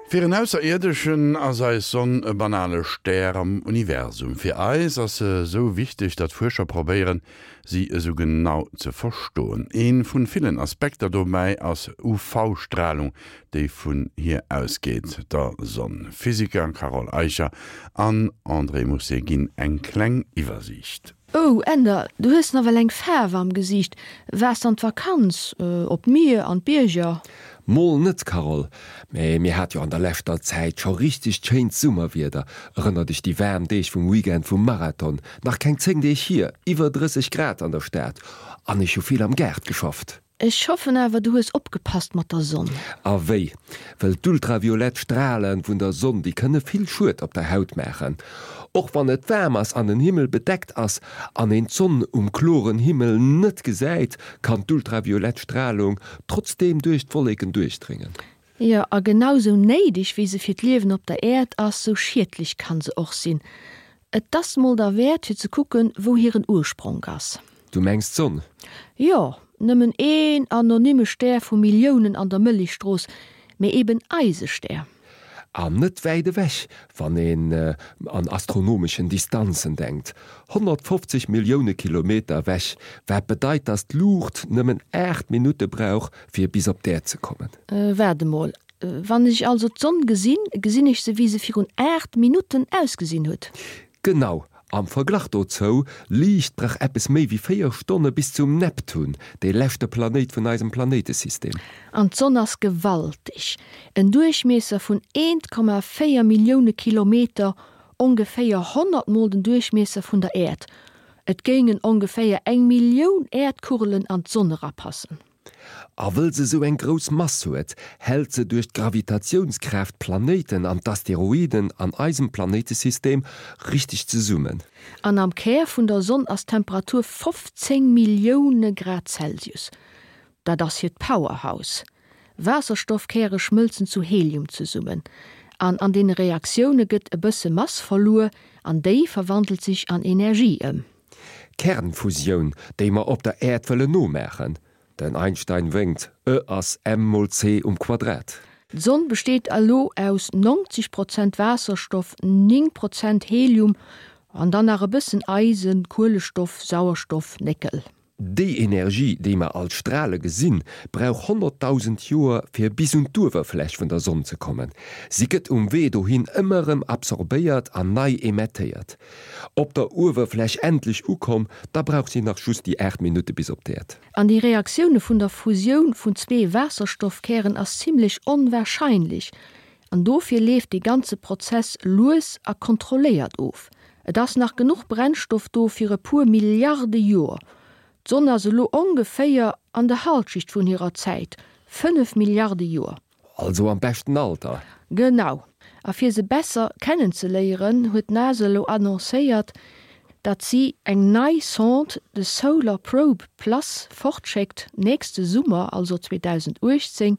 Fir en Ausserierdeschen ass eis Sonn e banale Stär am Universum. Fir eis ass se esou wichteg, datt Fuerscher probéieren, si esou genau ze verstoen. Ee vun villen Aspekter dobäi ass UV-Stralung, déi vun hir ausgeet, der Sonn. Physiker Carole Eicher an André Mousset ginn eng kleng Iwwersiicht. Oh Änder, du hues nawell eng Faarw am Gesiicht. Waars an d'Vakanz, op d'Mier, an d'Bierger? Mol net, Carole. Mä mir hat jo an der leschter Zäit scho richtegt schéint Summerwieder. Erënner dech déi waarm Deeg vum Weekend vum Marathon, nach keng 10 Deeg hier, iwwer 30 Grad an der Stad an ech hu vill am Gaart geschafft. Ech hoffen awer du hues opgepasst mat der Sonn. A wéi? Well d'ultraviolett Strale vun der Sonn, déi kënne vill Schued op der Haut maachen. Och wann et waarm ass an den Himmel bedeckt ass an een d'Sonn um kloren Himmel net gesäit, kann d'ultraviolett Stralung trotzdeem duerch d'Wolleken duerchdréngen. Jo, a genau sou néideg wéi se fir d'Liewen op der Äerd ass, sou schiedlech kann se och sinn. Et ass mol derwäert fir ze kucken, wou hiren Urspronk ass. Du mengs d'Sonn? Jo, nëmmen een anonyme Stär vu Milliounen an der Mëllechstrooss, mee eben eise Stär. An net wäit ewech, wann een an astronomeschen Distanzen denkt, 150 Millioune Kilometer ewech, wat bedeit, dass d'Luucht nëmmen 8 Minutte brauch, fir bis op d'Äerd ze kommen. Waart emol, wann ech also d'Sonn gesinn, gesinn ech se wéi se virun 8 Minutten ausgesinn huet? Genau, am Verglach dozou, Liicht brauch eppes méi wéi 4 Stonne bis zum Neptun, dee leschte Planéit vun eisem Planéitesystem. An d'Sonn ass gewalteg, en Duerchmiesser vun 1,4 Millioune Kilometer, ongeféier 100 mol den Duerchmiesser vun der Äerd. Et géingen ongeféier eng Millioun Äerdkugelen an d'Sonn erapassen. A wëll se sou eng grouss Mass huet, hält se duerch d'Gravitatiounskraaft d'Planéiten an d'Asteroiden an eisem Planéitesystem richteg zesummen. An am Kär vun der Sonn ass d'Temperatur 15 Millioune Grad Celsius. Dat ass hiert Powerhouse. Waasserstoffkäre schmëlzen zu Helium zesummen. An an deene Reaktioune gëtt e bësse Mass verluer an déi verwandelt sech an Energie ëm. Kernfusioun, déi mer op der Äerd wëllen nomaachen. Den Einstein wénkt, E ass m mol c um Quadrat. D'Sonn besteet elo aus 90 Prozent Waasserstoff, 9 Prozent Helium an dann nach e bëssen Eisen, Kuelestoff, Sauerstoff, Néckel. Déi Energie, déi mer als Strale gesinn, brauch 100.000 Joer fir bis un d'Uewerfläch vun der Sonn ze kommen. Si gëtt um Wee dohin ëmmer erëm absorbéiert an nei emettéiert. Op der Uewerfläch endlech ukomm, da brauch si nach just déi 8 Minutte bis op d'Äerd. An déi Reaktioune vun der Fusioun vun zwee Waasserstoffkären ass zimmlech onwahrscheinlech, an dofir leeft dee ganze Prozess lues a kontrolléiert of. Et ass nach genuch Brennstoff do fir e puer Milliarde Joer. D'Sonn ass elo ongeféier an der Halschicht vun hirer Zäit, 5 Milliarde Joer. Also am beschten Alter. Genau. A fir se besser kennenzeléieren, huet d'NASA elo annoncéiert, datt si eng nei Sonde, de Solar Probe Plus, fortschéckt, nächste Summer, also 2018,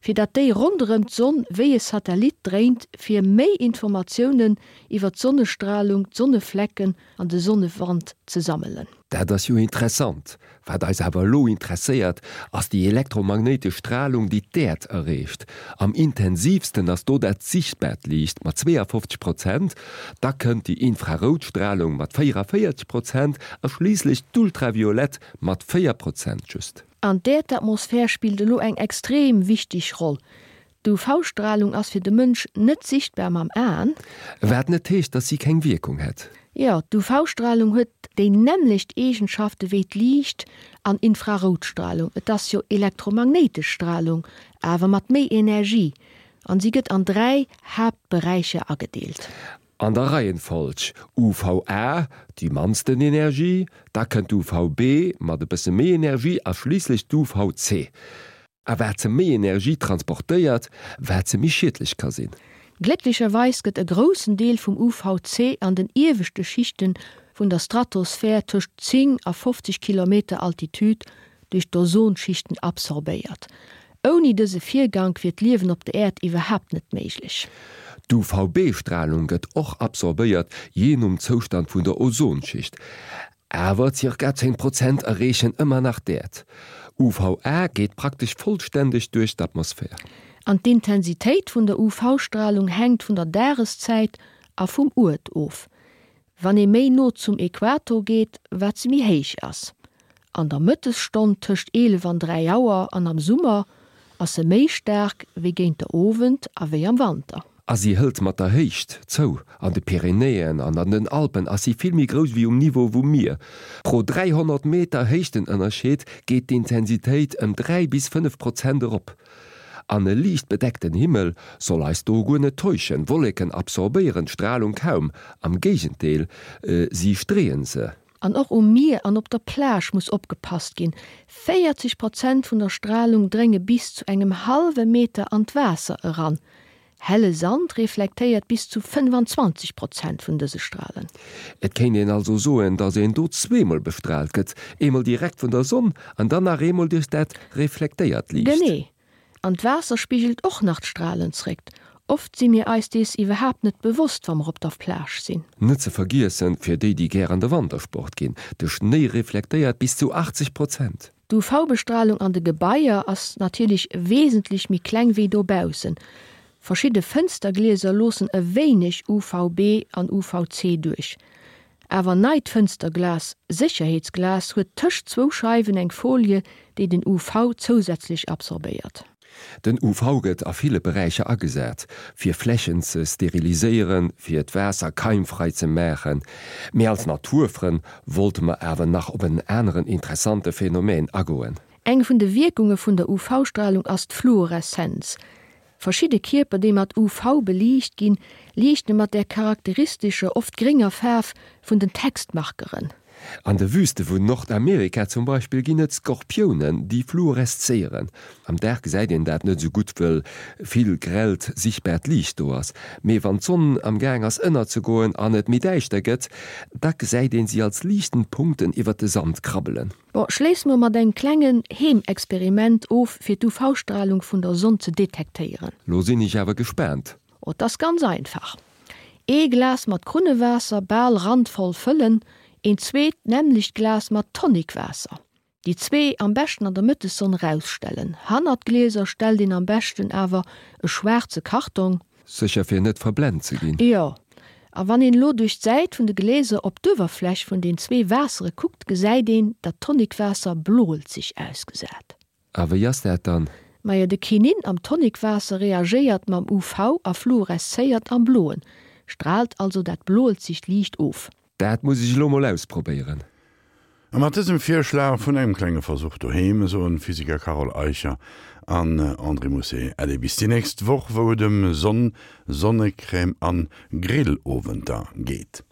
fir datt déi ronderëm d'Sonn wéi e Satellit dréint, fir méi Informatiounen iwwer d'Sonnestralung, d'Sonneflecken an de Sonnewand ze sammelen. Dat ass jo interessant. Wat eis awer elo interesséiert, ass déi elektromagnéitesch Stralung, déi d'Äerd erreecht. Am intensiivsten ass do dat sichtbaart Liicht mat 52 Prozent, da kënnt déi infrarout Stralung mat 44 Prozent a schliisslech d'ultraviolett mat 4 Prozent just. An d'Äerdatmosphär spillt elo eng extrem wichteg Roll. D'UV-Stralung ass fir de Mënsch net sichtbar mam Aen. Wat net heescht, dass si keng Wierkung hätt. Jo, d'UV-Stralung huet déi nämmlecht Eegenschafte wéi d'Liicht an Infraroutstralung. Et ass jo elektromagnéitesch Stralung, awer mat méi Energie. An si gëtt an 3 Haaptberäicher agedeelt. An der Reihenfolg, UVA, déi mannsten Energie, da kënnt d'UVB mat e bësse méi Energie a schliisslech d'UVC. A wat se méi Energie transportéiert, wat se méi schiedlech ka sinn. Glécklecherweis gëtt e groussen Deel vum UVC an den ieweschte Schichte vun der Stratosphär tëscht 10 a 50 Kilometer Altitude duerch d'Ozonschichten absorbéiert. Ouni dëse Virgank wier d'Liewen op der Äerd iwwerhaapt net méiglech. D'UVB-Stralung gëtt och absorbéiert, jee nom Zoustand vun der Ozonschicht. Awer zirka 10 Prozent erreechen ëmmer nach d'Äerd. UVA geet praktesch vollständeg duerch d'Atmosphär. An d'Intensitéit vun der UV-Stralung hänkt vun der Dageszäit a vum Uert of. Wann ee méi no zum Äquator geet, wat se méi héich ass. An der Mëttesstonn tëscht 11 an 3 Auer an am Summer ass se méi staark wéi géint der Owend a wéi am Wanter. A si hëlt mat der Héicht zou. An de Pyrenäen an an den Alpen ass si vill méi grouss wéi um Niveau vum Mier. Pro 300 Meter Héichtenënnerscheed geet d'Intensitéit ëm 3 bis 5 Prozent erop. An e liicht bedeckten Himmel soll eis do guer net täuschen, Wolleken absorbéieren d'Stralung kaum, am Géigendeel, si streeën se. An och um Mier an op der Plage muss opgepasst ginn, 40 Prozent vun der Stralung drénge bis zu engem hallwe Meter an d'Waasser eran. Helle Sand reflektéiert bis zu 25 Prozent vun dëse Stralen. Et kéint een also soen, dass een do zweemol bestraalt gëtt, eemol direkt vun der Sonn an dann nach eemol duerch dat reflektéiert Liicht. Genee. An d'Waasser spigelt och nach d'Stralen zréck. Oft si mir eis dees iwwerhaapt net bewosst, wa mer op der Plage sinn. Net ze vergiessen, fir déi, déi gär an de Wantersport ginn, de Schnéi reflektéiert bis zu 80 Prozent. D'UV-Bestralung an de Gebaier ass natierlech wesentlech méi kleng wéi dobaussen. Verschidde Fënsterglieser loossen e wéineg UVB an UVC duerch. Awer neit Fënsterglas, Sécherheetsglas, huet tëscht zwou Scheiwen eng Folie, déi den UV zousätzlech absorbéiert. Den UV gëtt a ville Beräicher agesat, fir Flächen ze steriliséieren, fir d'Waasser keimfrei ze maachen. Mee als Naturfrënn wollte mer awer nach op en aneren interessante Phänomen agoen. Eng vun de Wierkunge vun der UV-Stralung ass d'Fluoreszenz. Verschidde Kierper, déi mat UV beliicht ginn, liichte mat där charakteristescher, oft grénger Faarf vun den Textmarkeren. An de Wüste vun Nordamerika zum Beispill ginn et Skorpiounen, déi fluoreszéieren. Am Dag gesäit een dat net esou gutt, wëll vill grellt sichtbaart Liicht do ass. Mee wann d'Sonn am Gaang ass ënnerzegoen an et méi däischter gëtt, da gesäit een si als liichtend Punkten iwwer de Sand krabbelen. Bon, schléisse mer mat engem klengen Heemexperiment of fir d'UV-Stralung vun der Sonn ze detektéieren. Lo sinn ech awer gespaant. Oh, 't ass ganz einfach. Ee Glas mat Krunnewaasser bal randvoll fëllen, een zweet nämmlecht Glas mat Tonicwaasser. Déi zwee am beschten an der Mëttessonn rausstellen. Hannert d'Glieser stellt een am beschten awer e schwaarze Kartong. Sécher fir net verblent ze ginn. Jo, a wann een elo duerch d'Säit vun de Gläser op d'Uewerfläch vun den zwee Waassere kuckt, gesäit een, datt d'Tonicwaasser bloelzeg ausgesät. A wéi ass dat dann? Majo, de Chinin am Tonicwaasser reagéiert mam UV a fluoreszéiert am Bloen, straalt also dat bloelzegt Liicht of. Dat muss ech elo mol ausprobéieren. A mat dësem Virschlag vun engem klenge Versuch doheem soen Physiker Carole Eicher an André Mousset Äddi bis déi nächst Woch, wou et ëm Sonn, Sonnecrème an Grillowenter geet.